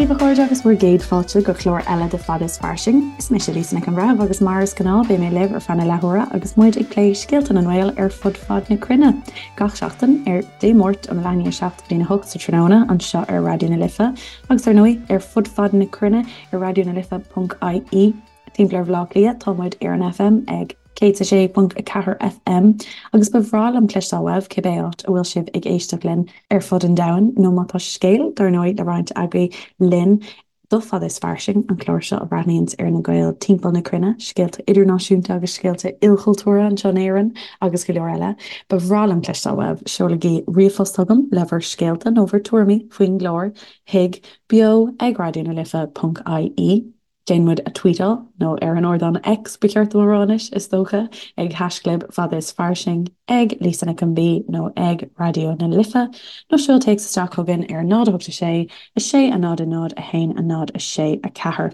daoibh a chairde agus bhur gcéad fáilte go clár eile de Fada is Fairsing. Is mise Lisa Nic an Bhreithimh agus mar is gnáth beidh mé libh ar feadh na leathuaire agus muid ag plé scéalta na nGael ar fud fad na cruinne. Gach seachtain ar Dé Máirt ón leath i ndiaidh a 7 go dtí'n 8 sa tráthnóna anseo ar Raidió na Life agus ar ndóigh ar fud fad na cruinne ar raidionalife.ie. Timpeall ar Bhaile Átha Cliath tá muid ar an FM ag 106.4 FM agus ba bhreá liom cloisteáil uaibh cibé áit a bhfuil sibh ag éisteacht linn ar fud an domhain nó má tá scéal dar ndóigh le roinnt agaibh linn do Fada is Fairsing, an clár seo a bhreathnaíonns ar na Gaeil timpeall na cruinne, scéalta idirnáisiúnta agus scéalta ilchultúrtha anseo in Éirinn agus go leor eile. Ba bhreá liom cloisteáil uaibh. Seolaigí ríomhphost chugam le bhur scéalta nó bhur tuairimí faoin gclár chuig beo ag raidionalife.ie. Déan muid a tweetáil, nó ar an ardán X ba cheart dom a rá anois, is dócha, ag haischlib Fada is Fairsing, ag Lisa Nic an B nó ag Raidió na Life, nó seol téacs isteach chugainn ar 0 8 6 6 0 0 1 0 6 4.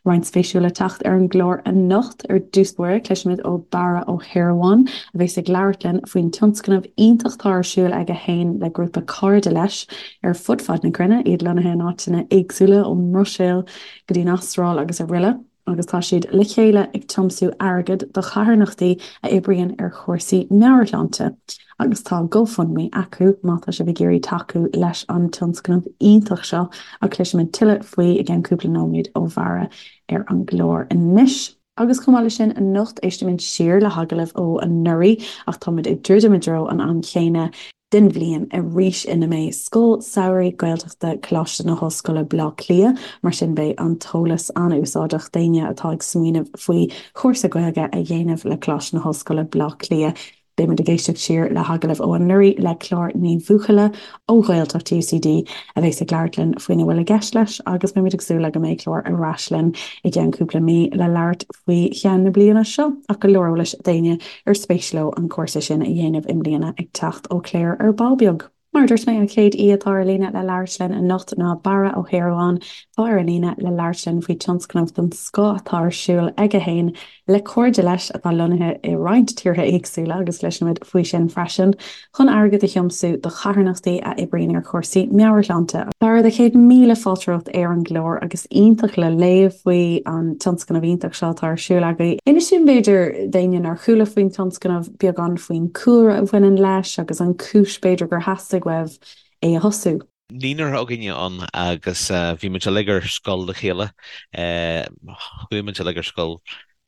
Roinnt spéisiúil le teacht ar an gclár anocht. Ar dtús báire, cloisfimid ó Barra Ó hEarmháin, a bheas ag labhairt linn faoin tionscnamh iontach atá ar siúl aige féin le grúpa cairde leis ar fud fad na cruinne, iad lonnaithe in áiteanna éagsúla, ón mBruiséil go dtí an Astráil agus araile, agus tá siad le chéile ag tiomsú airgid do charthanachtaí a oibríonn ar chúrsaí meabhairshláinte agus tá GoFundMe acu má tá sibh ag iarraidh tacú leis an tionscnamh iontach seo ach cloisfimid tuilleadh faoi i gceann cúpla nóiméad ó Bharra ar an gclár anois. Agus chomh maith leis sin, anocht éistfimid siar le hagallamh ó anuraidh ach táimid ag druidim i dtreo an am chéanna den bhliain arís ina mbeidh Scoil Samhraidh Gaeltachta Coláiste na hOllscoile Baile Átha Cliath, mar sin beidh an t-eolas an-úsáideach d'éinne atá ag smaoineamh faoi chúrsa Gaeilge a dhéanamh le Coláiste na hOllscoile Baile Átha Cliath. Beidh muid ag éisteacht siar le hagallamh ó anuraidh le Clár Ní Bhuachalla ó Ghaeltacht UCD a bheas ag labhairt linn faoina bhfuil i gceist leis agus beimid ag súil le go mbeidh Clár ar ais linn i gceann cúpla mí le labhairt faoi cheann na bliana seo ach go leor eolais d'éinne ar spéis leo an cúrsa sin a dhéanamh i mbliana ag teacht ó Claire ar ball beag. Mar a dúirt mé, an chéad aoi atá ar líne le labhairt linn anocht ná Barra Ó hEarmháin, atá ar an líne le labhairt linn faoi tionscnamh den scoth atá ar siúl aige féin le cairde leis atá lonnaithe i roinnt tíortha éagsúla agus cloisfimid faoi sin freisin, chun airgead a thiomsú do charthanachtaí a oibríonn ar chúrsaí meabhairshláinte. Barra, do chéad míle fáilte romhat ar an gclár agus iontach le léamh faoi an tionscnamh iontach seo atá ar siúl agaibh. Inis dúinn b'fhéidir, d'éinne nár chuala faoin tionscnamh, beagán faoin cúlra a bhaineann leis agus an cúis b'fhéidir gur theastaigh uaibh é a thosú. Naonúr againne ann agus bhí muid uilig ar scoil le chéile. Chuaigh muid uilig ar scoil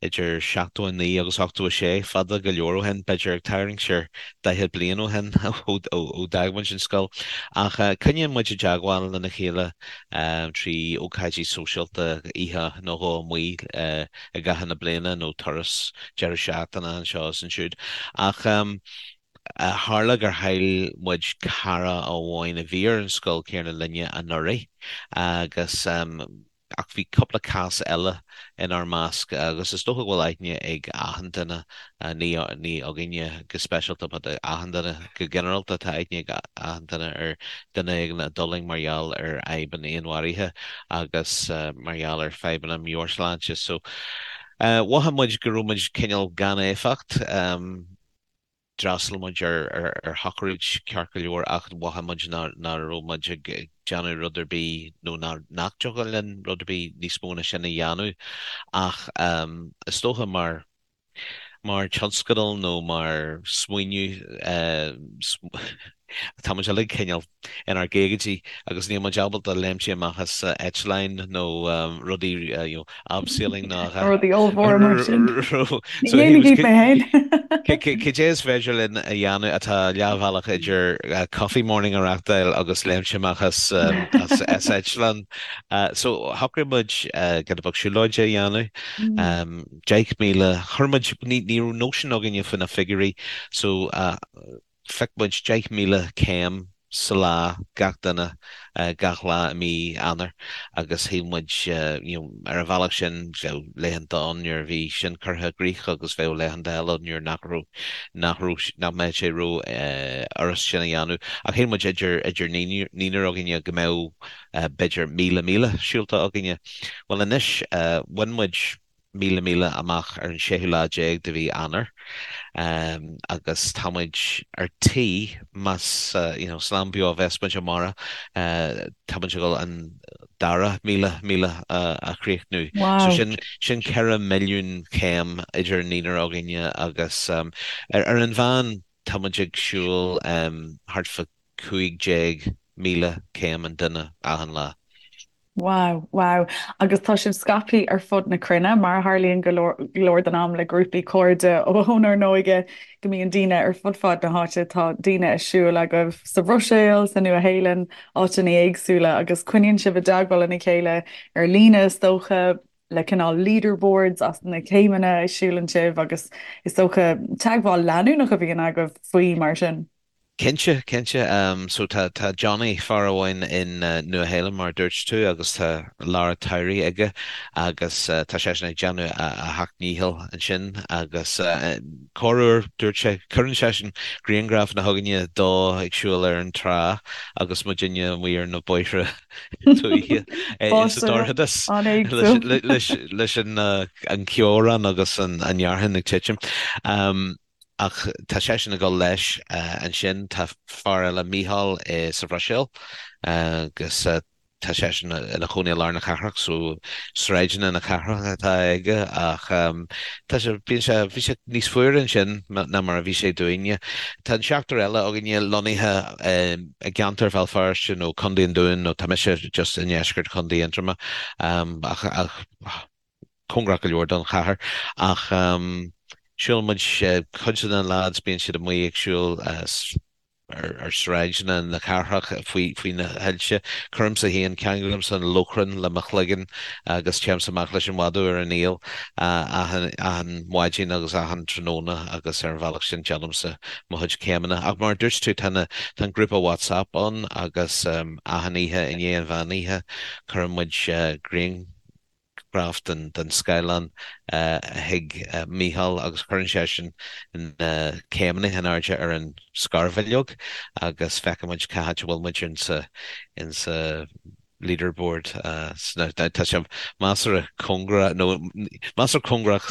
idir 79 agus 86, fada go leor ó shin, b'fhéidir ag tarraingt ar 40 bliain ó shin ó d'fhág muid an scoil. Ach coinníonn muid i dteagmháil lena chéile trí ócáidí sóisialta, oíche nó dhó amuigh i gcaitheamh na bliana nó turas deireadh seachtaine anseo is ansiúd. Ach tharla gur chaill muid cara amháin a bhí ar an scoil céanna linne anuraidh agus ach bhí cúpla cás eile inár measc agus is dócha go bhfuil aithne ag achan duine, ní ní againne go speisialta but achan duine go ginearálta, tá aithne ag achan duine ar duine éigin a d'fhulaing mar gheall ar fhadhb an fhéinmharaithe agus mar gheall ar fadhbanna meabhairshláinte. So mhothaigh muid go raibh muid cineál gan éifeacht. D'fhreastail muid ar shochraid ceart go leor ach mhothaigh muid nach raibh muid ag déanamh rud ar bith nó nach dtiocfadh linn rud ar bith níos mó ná sin a dhéanamh. Ach is dócha mar mar tionscadal nó mar smaoineamh tá muid uilig cineál inár gcaogaidí agus níl muid ábalta léimtí amach as eitleáin nó rudaí you know abseiling ná Rudaí ollmhóra mar sin. Ní dhéanfaidh mé féin. Cad é is féidir linn a dhéanamh atá leathbhealach idir coffee morning a reachtáil agus léimt amach as as eitleán. So shocraigh muid giota beag siúlóide a dhéanamh. 10,000, chuir muid, ní raibh nóisean againne faoi na figiúirí so phioc muid 10,000 céim sa lá, gach duine, gach lá i mí Eanáir agus shíl muid, you know, ar an bhealach sin bheadh laethanta ann nuair a bhí sin curtha i gcrích agus bheadh laethanta eile ann nuair nach raibh, nach raibh, nach mbeadh sé ró fhurast sin a dhéanamh. Ach shíl muid idir, idir naonúr againne go mbeadh b'fhéidir 1,000 míle siúlta againne. Bhuel anois, bhain muid 1,000 míle amach ar an séú lá déag de mhí Eanáir agus tá muid ar tí, más you know slán beo a bheas muid amárach, tá muid ag dul an. dara 1,000 míle a chríochnú. So sin sin 4 milliún céim idir an naonúr againne agus ar an mheán tá muid ag siúl thart fá 15,000 céim an duine achan lá. Wow, wow. Agus tá sibh scaipthe ar fud na cruinne, mar a tharlaíonn go leor den am le grúpaí cairde ónár n-óige, go mbíonn daoine ar fud fad na háite. Tá daoine ag siúl agaibh sa Bhruiséil, sa Nua-Shéalainn, áiteanna éagsúla, agus coinníonn sibh i dteagmháil lena chéile ar líne, is dócha, le cineál leaderboards as na céimeanna a siúlann sibh agus is dócha teagmháil leanúnach a bhíonn agaibh faoi mar sin. Cinnte, cinnte. So tá, tá Johnny, fear amháin in Nua Shéalainn mar a dúirt tú agus tá lár tsamhraidh aige agus tá seisean ag déanamh a sheacht ndícheall ansin agus corruair dúirt sé, cuireann seisean grianghrafanna chugainne dó ag siúl ar an trá agus muidinne amuigh ar na bóithre tuaithe sa dorchadas leis an ceobhrán agus an fhearthainn ag titim. Ach tá seisean ag dul leis ansin. Tá fear eile, Mícheál, sa Bhruiséil agus tá seisean ina chónaí i lár na cathrach so sráideanna na cathrach atá aige ach tá sé, bíonn sé, bhí sé níos fuaire ansin ná mar a bhí sé dúinne. Tá an seachtar eile againne lonnaithe i gceantar Bhéal Feirste nó Contae an Dúin nó tá mise just i ndeisceart Chontae Aontroma ach cóngarach go leor don chathair ach siúlann muid, cuid de na lads bíonn siad amuigh ag siúl ar sráideanna na cathrach faoi na soilse. Cuirimse féin, ceanglaímse an lóchrann le mo chloigeann agus téimse amach leis an mhadadh ar an aol achan maidin agus achan tráthnóna agus ar an bhealach sin déanaimse mo chuid céimeanna. Ach mar a dúirt tú tá an grúpa WhatsApp ann agus achan oíche i ndiaidh an mheán oíche cuireann muid grian graf den scáileán chuig Mícheál agus cuireann seisean na céimeanna in airde ar an scarbhileog agus feiceann muid cá háit a bhfuil muid insa insa leaderboard. Tá sé measartha cóngarach nó measartha cóngarach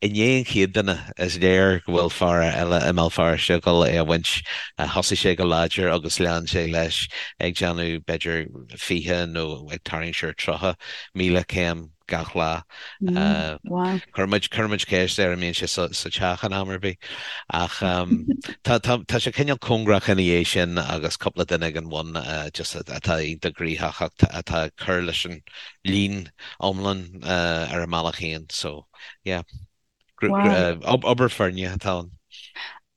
i ndiaidh an chéad duine is léir go bhfuil fear eile i mBéal Feirste ag dul é a bhaint. Thosaigh sé go láidir agus lean sé leis ag déanamh b'fhéidir 20 nó ag tarraingt siar 30,000 céim gach lá. Chuir muid, chuir muid ceist air an mbíonn sé sa teach in am ar bith. Ach tá, tá, tá sé cineál cóngarach ina dhiaidh sin agus cúpla duine ag an bhun just atá iontach gnoitheach ach atá ag cur leis an líon iomlán ar a mbealach féin. So, yeah. Obair foirne atá ann.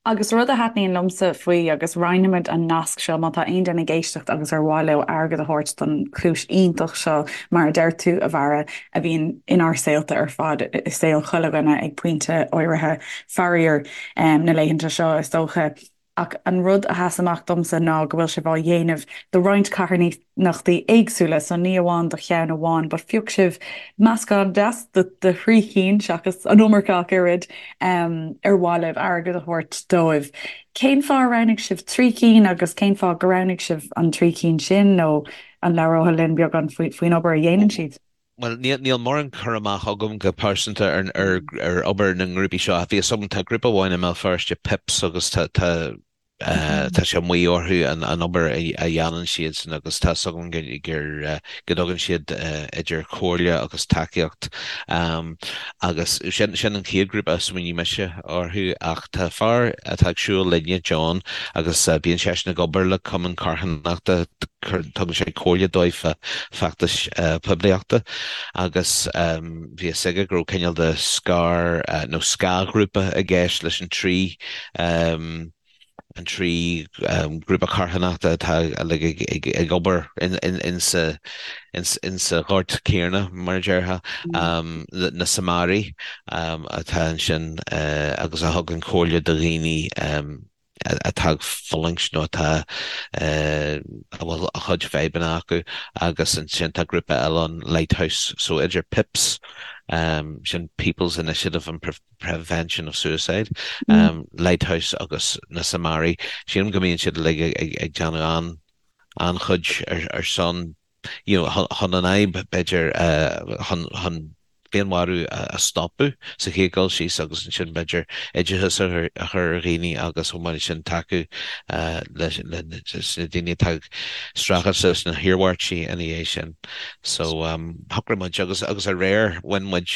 Agus rud a thaitníonn liomsa faoi, agus roinnfimid an nasc seo má tá aon duine ag éisteacht agus ar mhaith leo airgead a thabhairt don chúis iontach seo, mar a deir tú, a Bharra, a bhíonn inár saolta ar fad, i saol chuile dhuine ag pointe áirithe, faraor, na laethanta seo, is dócha. Ach an rud a sheas amach domsa ná go bhfuil sibh á dhéanamh do roinnt carthanachtaí éagsúla, so ní amháin do cheann amháin, but phioc sibh meascán deas de thrí chinn, seachas an iomarca ach oiread, ar mhaith libh airgead a thabhairt dóibh. Cén fáth ar roghnaigh sibh trí cinn agus cén fáth gur roghnaigh sibh an trí cinn sin nó an labhrófá linn beagán faoin obair a dhéanann siad? Bhuel, níl mórán cur amach agam go pearsanta ar obair na ngrúpaí seo. Bhí a fhios agam, tá grúpa amháin i mBéal Feirste, PIPS, agus tá tá sé amuigh orthu an obair a dhéanann siadsan agus tá a fhios agam gur go dtugann siad idir chomhairle agus tacaíocht agus sin sin an chéad ghrúpa a smaoinigh mise orthu ach tá fear atá ag siúl linne, John, agus bíonn seisean ag obair le cumann carthanachta, tugann sé comhairle dóibh fá feachtais poiblíochta agus bhí a fhios aige go raibh cineál de scar nó scáthghrúpa i gceist leis an trí an trí ghrúpa carthanachta atá uilig ag obair insa insa ghort céanna, mar a déarfá, na Samaraigh atá ansin agus a thugann comhairle do dhaoine atá ag fulaingt nó atá a bhfuil a chuid fadhbanna acu agus ansin tá grúpa eile ann, Lighthouse, so idir PIPS, sin People's Initiative on Prevention of Suicide, Lighthouse agus na Samaraigh, sílim go mbíonn siad uilig ag déanamh an-chuid ar son you know, chun an fhadhb, b'fhéidir, chun. féinmharú a stopadh sa chéad dul síos agus ansin b'fhéidir oideachas a chur ar dhaoine agus chomh maith leis sin tacú leis na daoine atá ag streachailt leis na hiarmhairtí ina dhiaidh sin. So shocraigh muid agus agus aréir bhain muid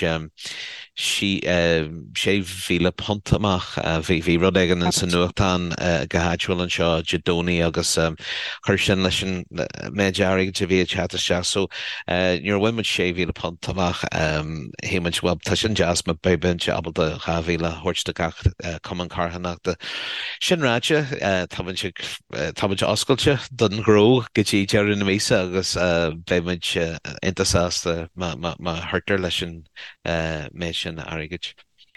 £6,000 amach. Bhí rud éigin sa nuachtán go háitiúil anseo Dé Domhnaigh agus chuir sin leis an méid airgid a bhí ag teacht isteach. So nuair a bhain muid £6,000 amach shíl muid bhuel tá sin deas má beidh muid ábalta 2,000 a thabhairt do gach cumann carthanachta. Sin ráite tá muid ag tá muid oscailte don ghnó go dtí deireadh na míosa agus beidh muid iontach sásta má chuirtear leis an méid sin airgid.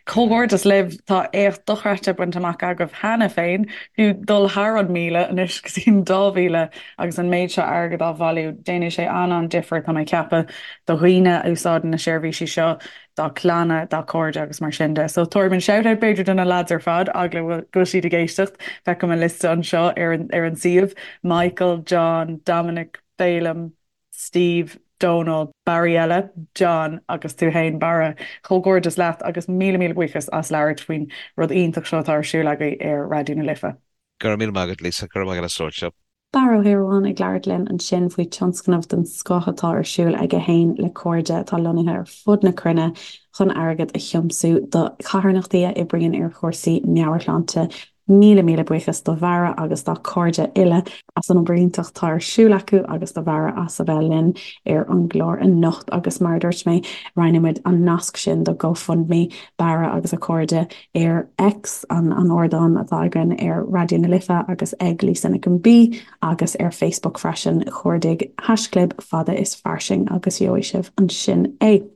Comhghairdeas libh, tá éacht dochreidte bainte amach agaibh cheana féin, fiú dul thar an 1,000 anois go dtí an 2,000 agus an méid seo airgid á bhailiú. Déanfaidh sé an-an-difear, tá mé ag ceapadh, do dhaoine a úsáideann na seirbhísí seo, dá gclanna, dá gcairde agus mar sin de. So tabharfaidh muid shout-out b'fhéidir do na lads ar fad, eagla go bhfuil siad ag éisteacht, feicim an liosta anseo ar an suíomh, Michael, John, Dominic, Féilim, Steve, Dónal, Barry eile, John agus tú fhéin Barra. Comhghairdeas leat agus míle míle buíochas as labhairt faoin rud iontach seo atá ar siúl agaibh ar Raidió na Life. Go raibh míle maith agat Lisa, go raibh maith agat as labhairt liom. Barra Ó hEoragáin ag labhairt linn ansin faoi tionscnamh den scoth atá ar siúl aige fhéin le cairde atá lonnaithe ar fud na cruinne chun airgead a thiomsú do charthanachtaí a oibríonn ar chúrsaí meabhairshláinte Míle míle buíochas do Bharra agus dá chairde uile as an obair iontach atá ar siúl acu agus do Bharra as a bheith linn ar an gclár anocht agus mar a dúirt mé, roinnfidh muid an nasc sin do GoFundMe Barra agus a chairde ar X, an ardán atá againn ar Raidió na Life agus ag Lisa Nic an B agus ar Facebook freisin, cuardaigh haischlib fada is fairsing agus gheobhaidh sibh ansin é.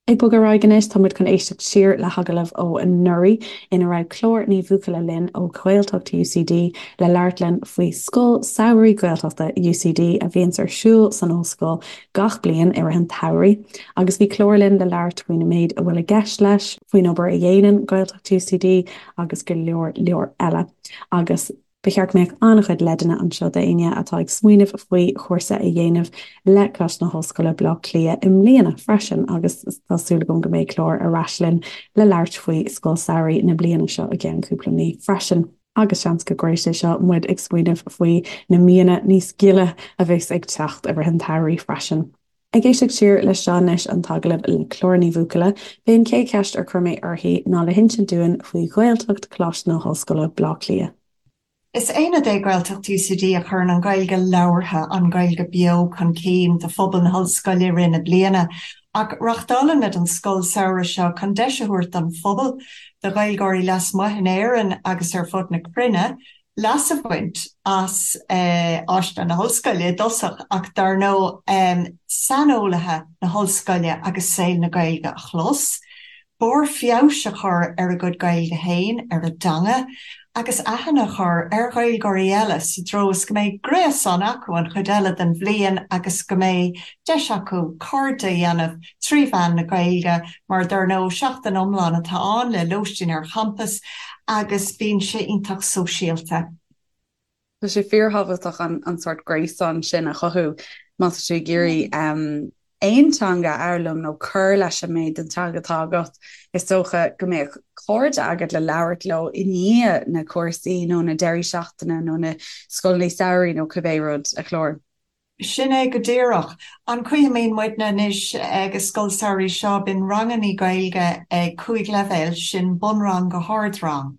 Ag bogadh ar aghaidh anois, tá muid chun éisteacht siar le hagallamh ó anuraidh ina raibh Clár Ní Bhuachalla linn ó Ghaeltacht UCD le labhairt linn faoi Scoil Samhraidh Gaeltachta UCD a bhíonns ar siúl san ollscoil gach bliain i rith an tsamhraidh. Agus bhí Clár linn le labhairt faoin méid a bhfuil i gceist leis, faoin obair a dhéanann Gaeltacht UCD agus go leor leor eile. Agus. Ba cheart go mbeadh an-chuid leideanna anseo d'éinne atá ag smaoineamh faoi chúrsa a dhéanamh le Coláiste na hOllscoile, Baile Átha Cliath i mbliana freisin agus tá súil agam go mbeidh Clár ar ais linn le labhairt faoi Scoil Samhraidh na bliana seo i gceann cúpla mí freisin. Agus seans go gcuirfidh sé seo muid ag smaoineamh faoi na míonna níos gile a bheas ag teacht i rith an tsamhraidh freisin. Ag éisteacht siar leis seo anois, an t-agallamh le Clár Ní Bhuachalla, b'é an chéad cheist ar chuir mé uirthi ná le hinsint dúinn faoi Ghaeltacht Choláiste na hOllscoile, Baile Átha Cliath. Is aonad é Gaeltacht UCD a chuireann an Ghaeilge labhartha, an Ghaeilge beo chun cinn do phobal na hOllscoile i rith na bliana. Ach reáchtálaimid an scoil samhraidh seo chun deis a thabhairt don phobal, do Ghaeilgeoirí lasmuigh in Éirinn agus ar fud na cruinne, leas a bhaint as áiseanna na hOllscoile i dtosach ach dar ndóigh saineolaithe na hOllscoile agus saol na Gaeilge a chlos, barr feabhais a chur ar a gcuid Gaeilge féin, ar a dteanga, agus aithne a chur ar Ghaeilgeoirí eile sa treo is go mbeidh gréasán acu an chuid eile den bhliain agus go mbeidh deis acu cairde a dhéanamh trí mheán na Gaeilge mar dar ndóigh seachtain iomlán atá ann le lóistín ar champas agus bíonn sé iontach sóisialta. Tá sé fíorthábhachtach an sórt gréasán sin a chothú má tá tú ag iarraidh aon teanga a fhoghlaim nó cur leis an méid den teanga atá agat. Is dócha go mbeadh cairde agat le labhairt leo i ndiaidh na cúrsaí nó na deirí seachtaine nó na scoileanna samhraidh nó cibé rud, a Chlár. Sin é go díreach. An chaoi a mbíonn muidne anois ag an scoil samhraidh seo, bíonn rangannaí Gaeilge ag 5 leibhéal, sin bunrang go hardrang.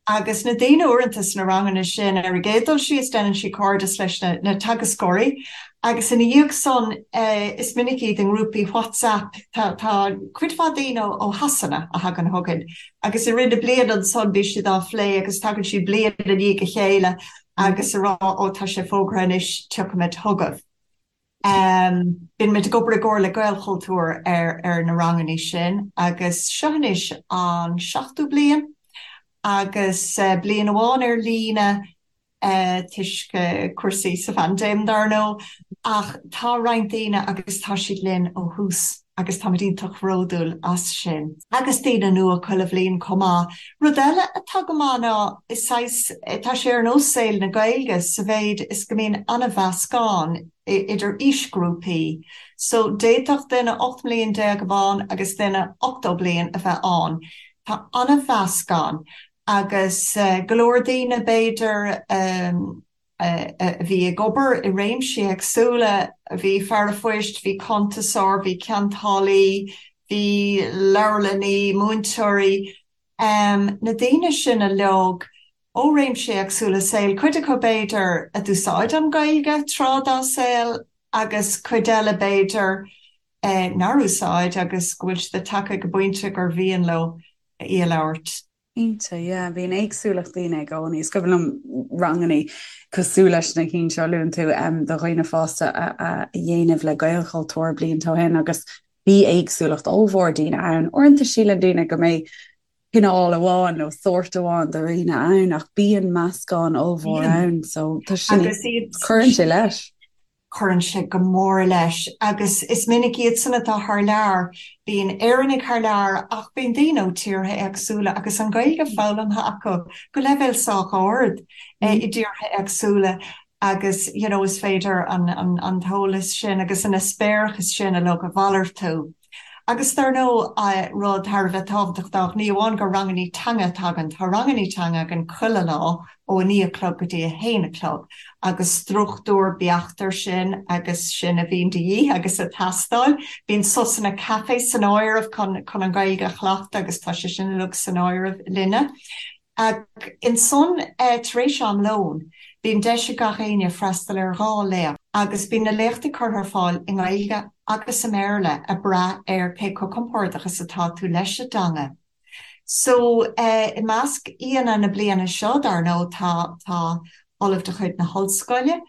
Agus na daoine uaireanta sna ranganna sin, ar an gcéad dul síos déanann siad cairdeas leis na teagascóirí agus ina dhiaidh san is minic iad i ngrúpaí WhatsApp. Tá cuid mhaith daoine ó Shasana a thagann chugainn agus i rith na bliana ansan bíonn siad á phlé agus tagann siad bliain i ndiaidh a chéile agus a rá ó tá sé fógartha anois tiocfaimid chugaibh. Bíonn muid ag obair i gcomhar le Gaelchultúr ar ar na rangannaí sin agus seo anois an seachtú bliain agus bliain amháin ar líne toisc cúrsaí sa phaindéim dar ndóigh ach tá roinnt daoine agus tá siad linn ó thús. Agus táimid iontach bhródúil as sin. Agus daoine nua chuile bhliain chomh maith. Rud eile atá go maith ná is saghas, tá sé ar nós saol na Gaeilge sa mhéid is go mbíonn an-mheascán idir aoisghrúpaí. So d'fhéadfadh duine 18 mbliain a bheith ann agus duine 80 bliain a bheith ann. Tá an-mheascán agus go leor daoine b'fhéidir, a bhí ag obair i réimsí éagsúla, bhí fear a phoist, bhí cuntasóir, bhí ceantálaí, bhí leabharlannaí, múinteoirí, na daoine sin uilig ó réimsí éagsúla saoil, cuid acu b'fhéidir a d'úsáid an Ghaeilge tráth dá saol agus cuid eile b'fhéidir nár úsáid agus go bhfuil siad tagtha ag an bpointe gur mhian leo í a labhairt. Cinnte, yeah. Bíonn éagsúlacht daoine i gcónaí. Is cuimhin liom rangannaí cosúil leis na cinn seo a luann tú do dhaoine fásta a dhéanamh le Gaelchultúr blianta ó shin agus bhí éagsúlacht ollmhór daoine ann. Uaireanta síleann daoine go mbeidh cineál amháin nó sórt amháin de dhaoine ann ach bíonn meascán ollmhór ann so tá sin, cuireann sé leis. Cuireann sé go mór leis agus is minic iadsan atá thar lear, bíonn Éireannaigh thar lear ach bíonn daoine ó tíortha éagsúla agus an Ghaeilge foghlamtha acu go leibhéal sách ard i dtíortha éagsúla agus you know is féidir an t-eolas sin agus an eispéireachas sin uilig a mhalartú. Agus dar ndóigh, rud thar a bheith tábhachtach, ní amháin gur rangannaí teanga atá againn, tá rangannaí teanga againn chuile lá ó a 9 a chlog go dtí a 1 a chlog agus struchtúr beacht air sin agus sin a bhíonn de dhíth agus ag teastáil. Bíonn sosanna caife san áireamh chun an Ghaeilge a chleachtadh agus tá sé sin uilig san áireamh linne. Ach ansan, tar éis am lóin, bíonn deis ag gach éinne freastal ar dhá léacht agus bíonn na léachtaí curtha ar fáil i nGaeilge agus i mBéarla ag brath ar cé chomh compordach is atá tú leis an dteanga. So, i measc aíonna na bliana seo, dar ndóigh, tá, tá Ollamh de chuid na hOllscoile.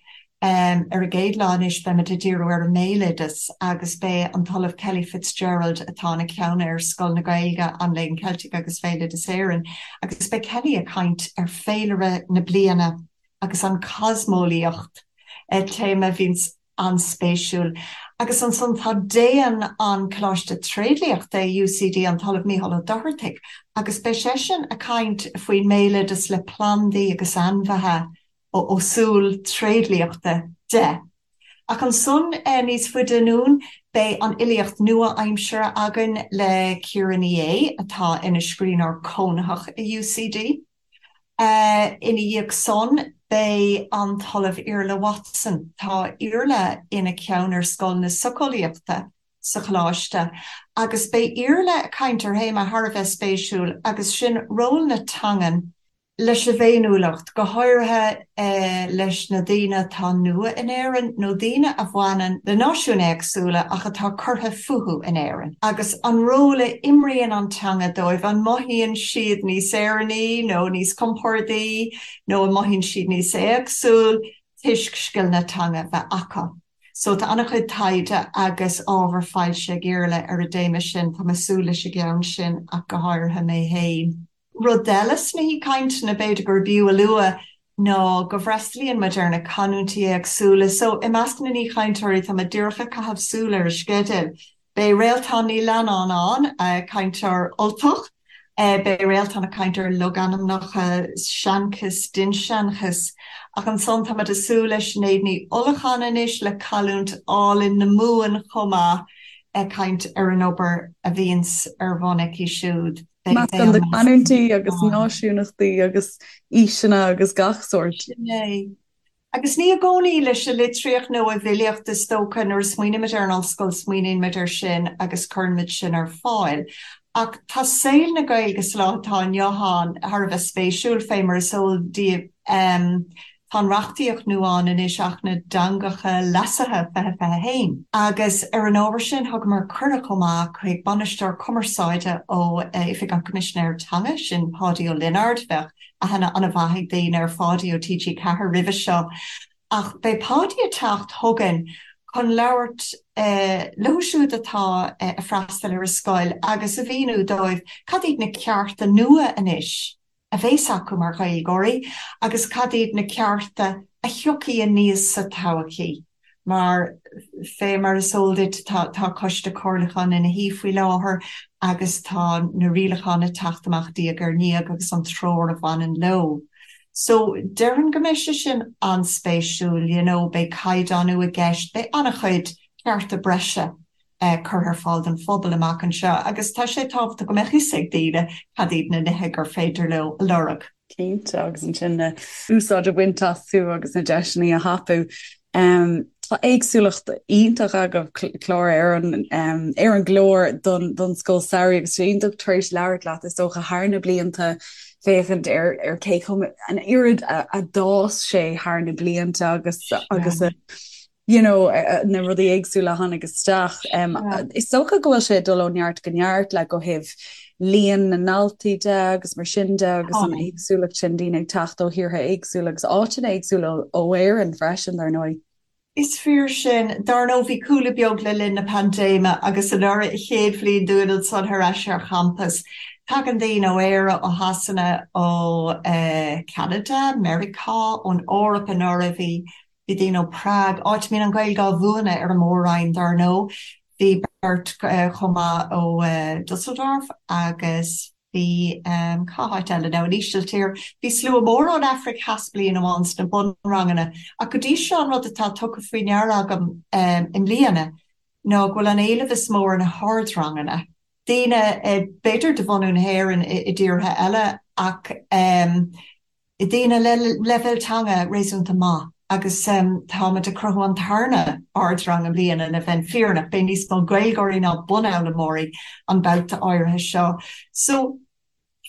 Ar an gcéad lá anois beimid ag díriú ar an mbéaloideas agus beidh an tOllamh Kelly Fitzgerald, atá ina ceann ar Scoil na Gaeilge, an Léinn Cheiltigh agus Bhéaloideas Éireann, agus beidh Kelly ag caint ar féilire na bliana agus an chosmeolaíocht, téama a bhíonns an-spéisiúil. Agus ansan tá Déan an Choláiste Tréidliachta i UCD, an tOllamh Mícheál Ó Dochartaigh, agus beidh seisean ag caint faoin mbéaloideas le plandaí agus ainmhithe ó súil tréidliachta de. Ach ansan níos faide anonn beidh an fhilíocht nua-aimseartha againn le Ciara Ní É, atá ina scríbhneoir cónaitheach i UCD. Ina dhiaidh san beidh an tOllamh Iarla Watson. Tá Iarla ina cheann ar Scoil na Socheolaíochta sa Choláiste agus beidh Iarla ag caint ar théama thar a bheith spéisiúil agus sin ról na teangan leis an bhféiniúlacht, go háirithe leis na daoine atá nua in Éirinn nó daoine a bhaineann le náisiúin éagsúla ach atá curtha fúthu in Éirinn, agus an ról a imríonn an teanga dóibh, an mothaíonn siad níos Éireannaí nó níos compordaí nó an mothaíonn siad níos éagsúil toisc scileanna teanga a bheith acu. So tá an-chuid taighde agus ábhar foilsithe ag Iarla ar an dtéama sin, tá mé ag súil leis an gceann sin ach go háirithe mé féin. Rud eile sna haoichainteanna b'fhéidir gurb fhiú a lua ná go bhfreastalaíonn muid ar na canúintí éagsúla. So, i measc na n-aoichainteoirí, tá mé díreach ag caitheamh súil ar an sceideal, beidh Réaltán Ní Leannáin ann, cainteoir Ultach, beidh Réaltán ag caint ar logainmneacha, seanchas, dinnseanchas. Ach ansan tá muid ag súil le Sinéad Ní Uallacháin anois le canúint álainn na Mumhan chomh maith, ag caint ar an obair a bhíonns ar bun aici siúd. Meascán de chanúintí agus náisiúnachtaí agus aoiseanna agus gach sórt. Sin é. Agus ní i gcónaí leis an litríocht nó an bhfilíocht is dócha, nuair a smaoinímid ar an ollscoil smaoiníonn muid air sin agus cuireann muid sin ar fáil. Ach tá saol na Gaeilge sa lá atá inniu ann thar a bheith spéisiúil, fé mar is eol daoibh. Tá an reachtaíocht nua ann anois, Acht na dTeangacha Leasaithe 2021, agus ar an ábhar sin thugamar cuireadh chomh maith chuig Bainisteoir Cumarsáide ó Oifig an Choimisinéara Teanga, sin Páidí Ó Lionáird. Bheadh aithne an-mhaith ag daoine ar Pháidí ó TG4 roimhe seo, ach beidh Páidí ag teacht chugainn chun labhairt leo siúd atá ag freastal ar an scoil agus a mhíniú dóibh cad iad na cearta nua anois a bheas acu mar Ghaeilgeoirí agus cad iad na cearta a thiocfaidh aníos sa todhchaí. Mar, fé mar is eol duit, tá tá coiste comhairliúcháin ina shuí faoi láthair agus tá na rialacháin ag teacht amach diaidh ar ndiaidh agus an treoir a bhaineann leo. So, déarfainn go mbeidh sé sin an-spéisiúil, you know, beidh caighdeánú i gceist, beidh an-chuid cearta breise curtha ar fáil don phobal amach anseo agus tá sé tábhachtach go mbeadh fhios ag daoine cad iad na nithe gur féidir leo a lorg. Cinnte, agus ansin na úsáid a bhaint astu agus na deiseanna a thapú. Tá éagsúlacht iontach agaibh clár ar an ar an gclár don don scoil samhraidh agus iontach tar éis labhairt leat is dócha thar na blianta féachaint ar ar cé chomh an oiread a a d'fhás sé thar na blianta agus agus a you know, na rudaí éagsúla a tháinig isteach. Is dócha go bhfuil sé ag dul ó neart go neart le ó thaobh líon na ndaltaí de agus mar sin de agus an éagsúlacht sin daoine ag teacht ó thíortha éagsúla agus áiteanna éagsúla ó Éirinn freisin, dar ndóigh. Is fíor sin. Dar ndóigh bhí cúlú beag le linn na paindéime agus anuraidh an chéad bhliain dúinn ansan ar ais ar champas. Tagann daoine ó Éire, ó Shasana, ó Cheanada, Meiriceá, ón Eoraip anuraidh bhí Bhí daoine ó Prague, áit a mbíonn an Ghaeilge á mhúineadh ar an Mór-Roinn dar ndóigh. Bhí beirt chomh maith ó Dusseldorf agus bhí, cá háit eile now, an Ísiltír. Bhí slua mór ón Afraic Theas bliain amháin sna bunranganna. Ach go dtí seo an rud atá tugtha faoi ndeara agam i mbliana ná go bhfuil an éileamh is mó ar na hardranganna. Daoine, b'fhéidir de bhunú na hÉireann i dtíortha eile ach, daoine le leibhéal teanga réasúnta maith agus táimid ag cruthú an tarna ardrang i mbliana le bheith fírinneach, beidh níos mó Gaeilgeoirí ná bunfhoghlaimeoirí an babhta áirithe seo. So,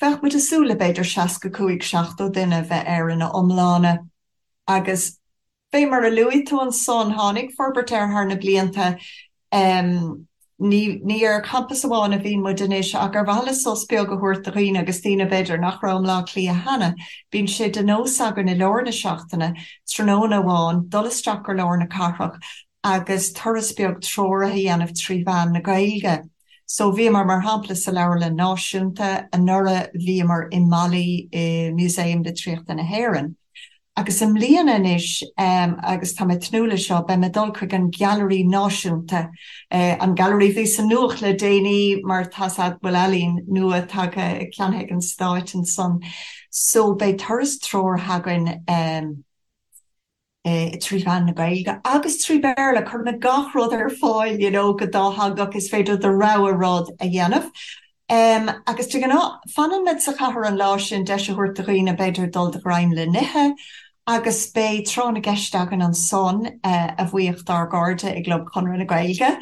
bheadh muid ag súil le b'fhéidir 65, 70 duine a bheith air ina iomláine agus Fé mar a luaigh tú ansan, tháinig forbairt air thar na blianta. Ní ní ar champas amháin a bhíonn muid anois ach ar mhaithe le sos beag a thabhairt do dhaoine agus daoine b'fhéidir nach raibh i mBleá Cliath cheana, bíonn sé de nós againn i lár na seachtaine, tráthnóna amháin, dul isteach go lár na cathrach agus turas beag treoraithe a dhéanamh trí mheán na Gaeilge. So bhíomar mar shampla sa Leabharlann Náisiúnta anuraidh, bhíomar i Mali i Músaem Litríochta na hÉireann. Agus i mbliana anois, agus tá mé ag tnúth leis seo, beidh mé ag dul chuig an Gailearaí Náisiúnta, an gailearaí a bhí sa nuacht le déanaí mar tá's a'd go bhfuil ealaín nua tagtha, ceannaithe ag an Stáit ansan. So beidh turas treoraithe againn trí mheán na Gaeilge agus trí Bhéarla, cuirfimid gach rud ar fáil you know go dátheangach, is féidir do rogha rud a dhéanamh. Agus de ghnáth, fanann muid sa chathair an lá sin, deis a thabhairt do dhaoine b'fhéidir dul de ghreim le n-ithe, agus beidh tráth na gceist againn ansan, a bhuíoch dár gcairde i gClub Chonradh na Gaeilge,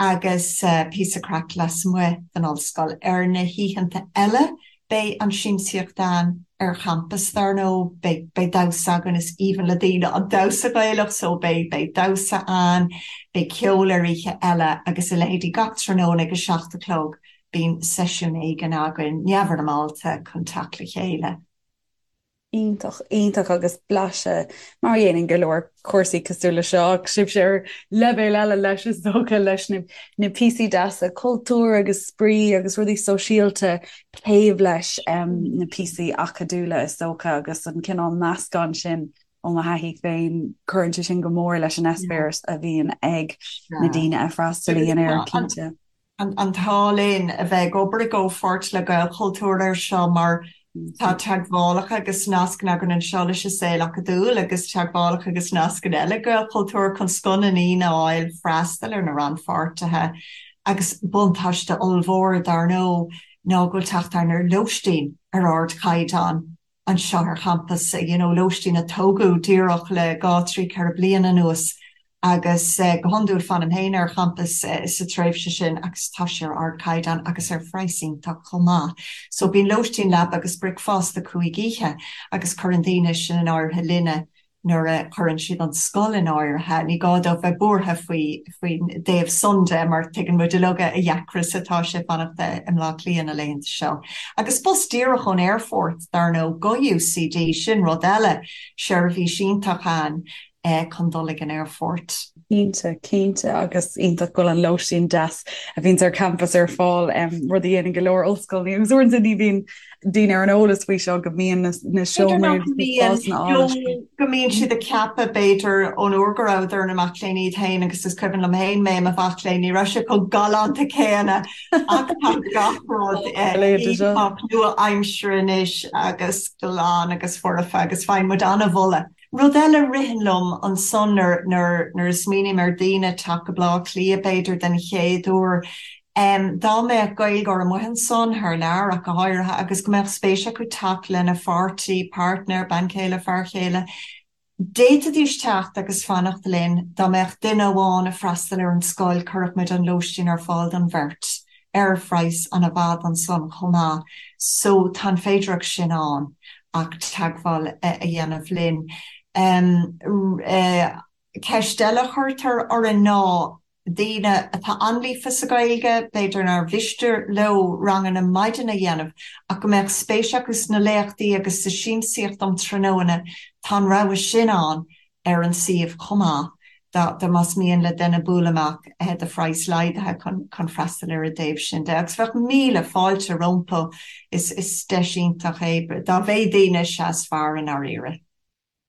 agus píosa craic lasmuigh den ollscoil. Ar na hoícheanta eile, beidh an siamsaíocht ann ar champas, dar ndóigh, beidh beidh damhsa againn, is aoibhinn le daoine an damhsa Gaelach so beidh beidh damhsa ann, beidh ceol ar oíche eile agus a leithéidí gach tráthnóna ag a 7 a chlog bíonn seisiún éigin againn, neamhfhoirmeálta, chun teacht le chéile. Iontach, iontach agus blaiseadh, mar a dhéanann go leor cúrsaí cosúil le seo, ach sibhse ar leibhéal eile leis is dócha, leis na na píosaí deasa cultúir agus spraoi agus rudaí sóisialta taobh leis na píosaí acadúla is dócha agus an cineál meascán sin ó mo thaithí féin, cuireann sé sin go mór leis an eispéireas a bhíonn ag na daoine a fhreastalaíonn air, cinnte. an t-ádh linn a bheith ag obair i gcomhpháirt le Gaelchultúr air seo mar tá teagmhálacha agus nascanna againn anseo leis an saol acadúil agus teagmhálacha agus nascanna eile ag Gaelchultúr chun scoth na ndaoine a fháil freastal ar na rannpháirtithe agus buntáiste ollmhór dar ndóigh ná go bhfuil teacht againn ar lóistín ar ardchaighdeán anseo ar champas, you know lóistín a tógadh díreach le 2, 3, 4 bliana anuas agus go hiondúil fanaim féin ar champas sa tréimhse sin agus tá sé ar ardchaighdeán agus ar phraghas iontach chomh maith. So bíonn lóistín, leaba agus bricfeasta 5 oíche agus cuireann daoine sin in áirithe linne nuair a chuireann siad an scoil in áirithe. Ní gá dóibh bheith buartha faoi faoin dtaobh san de mar tuigeann muid uilig a dheacra is atá sé fanacht i mBleá Cliath na laethanta seo. Agus bus díreach ón aerfort, dar ndóigh, go UCD, sin rud eile, seirbhís iontach ann. Chun dul ag an aerfort. Cinnte, cinnte, agus iontach go bhfuil an lóistín deas a bhíonns ar campas ar fáil, rud a dhéanann go leor ollscoileanna agus uaireanta ní bhíonn daoine ar an eolas faoi seo go mbíonn na seomraí agus na spásanna álainn sin. Go mbíonn siad ag ceapadh, b'fhéidir, ón uair go rabhadar ina mac léinn iad féin agus is cuimhin liom féin mé i mo mhac léinn, ní raibh sé chomh galánta céanna ach tá gach rud iontach nua-aimseartha anois agus glan agus foirfe agus faigheann muid an-mholadh. Rud eile a ritheann liom ansan nuair nuair a smaoiním ar daoine teacht go Bleá Cliath b'fhéidir den chéad uair, dá mbeadh Gaeilgeoir amuigh ansan, thar lear ach go háirithe, agus go mbeadh spéis acu teacht lena pháirtí, partner, bean chéile, fear chéile, d'fhéadfaidís teacht agus fanacht linn. Dá mbeadh duine amháin ag freastal ar an scoil, chuirfeadh muid an lóistín ar fáil don bheirt. ar phraghas an-mhaith ansan chomh maith so tá an féidireacht sin ann ach teagmháil a dhéanamh linn. Ceist eile a chuirtear orainn ná daoine atá an-líofa sa Ghaeilge, b'fhéidir nár mhiste leo ranganna maidine a dhéanamh ach go mbeadh spéis acu sna léachtaí agus sa siamsaíocht um tráthnóna, tá an rogha sin ann ar an suíomh chomh maith dá más mian le duine bualadh amach do phraghas laghdaithe chun freastal ar an dtaobh sin de. Agus bheadh míle fáilte rompu, is deis iontach é dá mhéad daoine is ea is fearr i ndáiríre.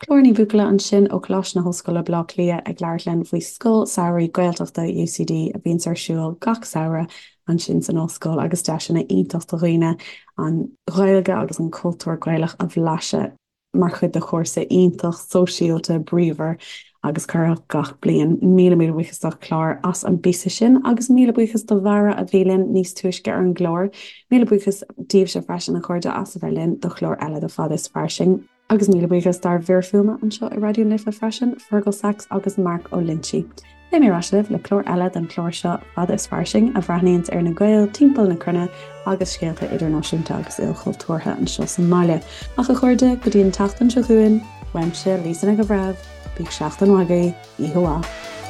Clár Ní Bhuachalla ansin ó Choláiste na hOllscoile Baile Átha Cliath ag labhairt linn faoi Scoil Samhraidh Gaeltachta UCD a bhíonns ar siúl gach samhradh ansin san ollscoil agus deiseanna iontach do dhaoine an Ghaeilge agus an cultúr Gaelach a bhlaiseadh. mar chuid de chúrsa iontach sóisialta bríomhar agus corraitheach gach bliain. Míle míle buíochas do Chlár as an bpíosa sin agus míle buíochas do Bharra a bhí linn níos túisce ar an gclár. Míle buíochas daoibhse freisin a chairde as a bheith linn do chlár eile de Fada is Fairsing. Agus míle buíochas dár bhfir fuaime anseo i Raidió na Life freisin, Fergal Sachs agus Mark Ó Loinsigh. Beidh mé ar ais libh le clár eile den chlár seo, Fada is Fairsing, a bhreathnaíonns ar na Gaeil timpeall na cruinne agus scéalta idirnáisiúnta agus ilchultúrtha anseo sa mbaile. Ach a chairde, go dtí an tseachtain seo chugainn, uaimse, Lisa Nic an Bhreithimh, bíodh seachtain mhaith agaibh, oíche mhaith.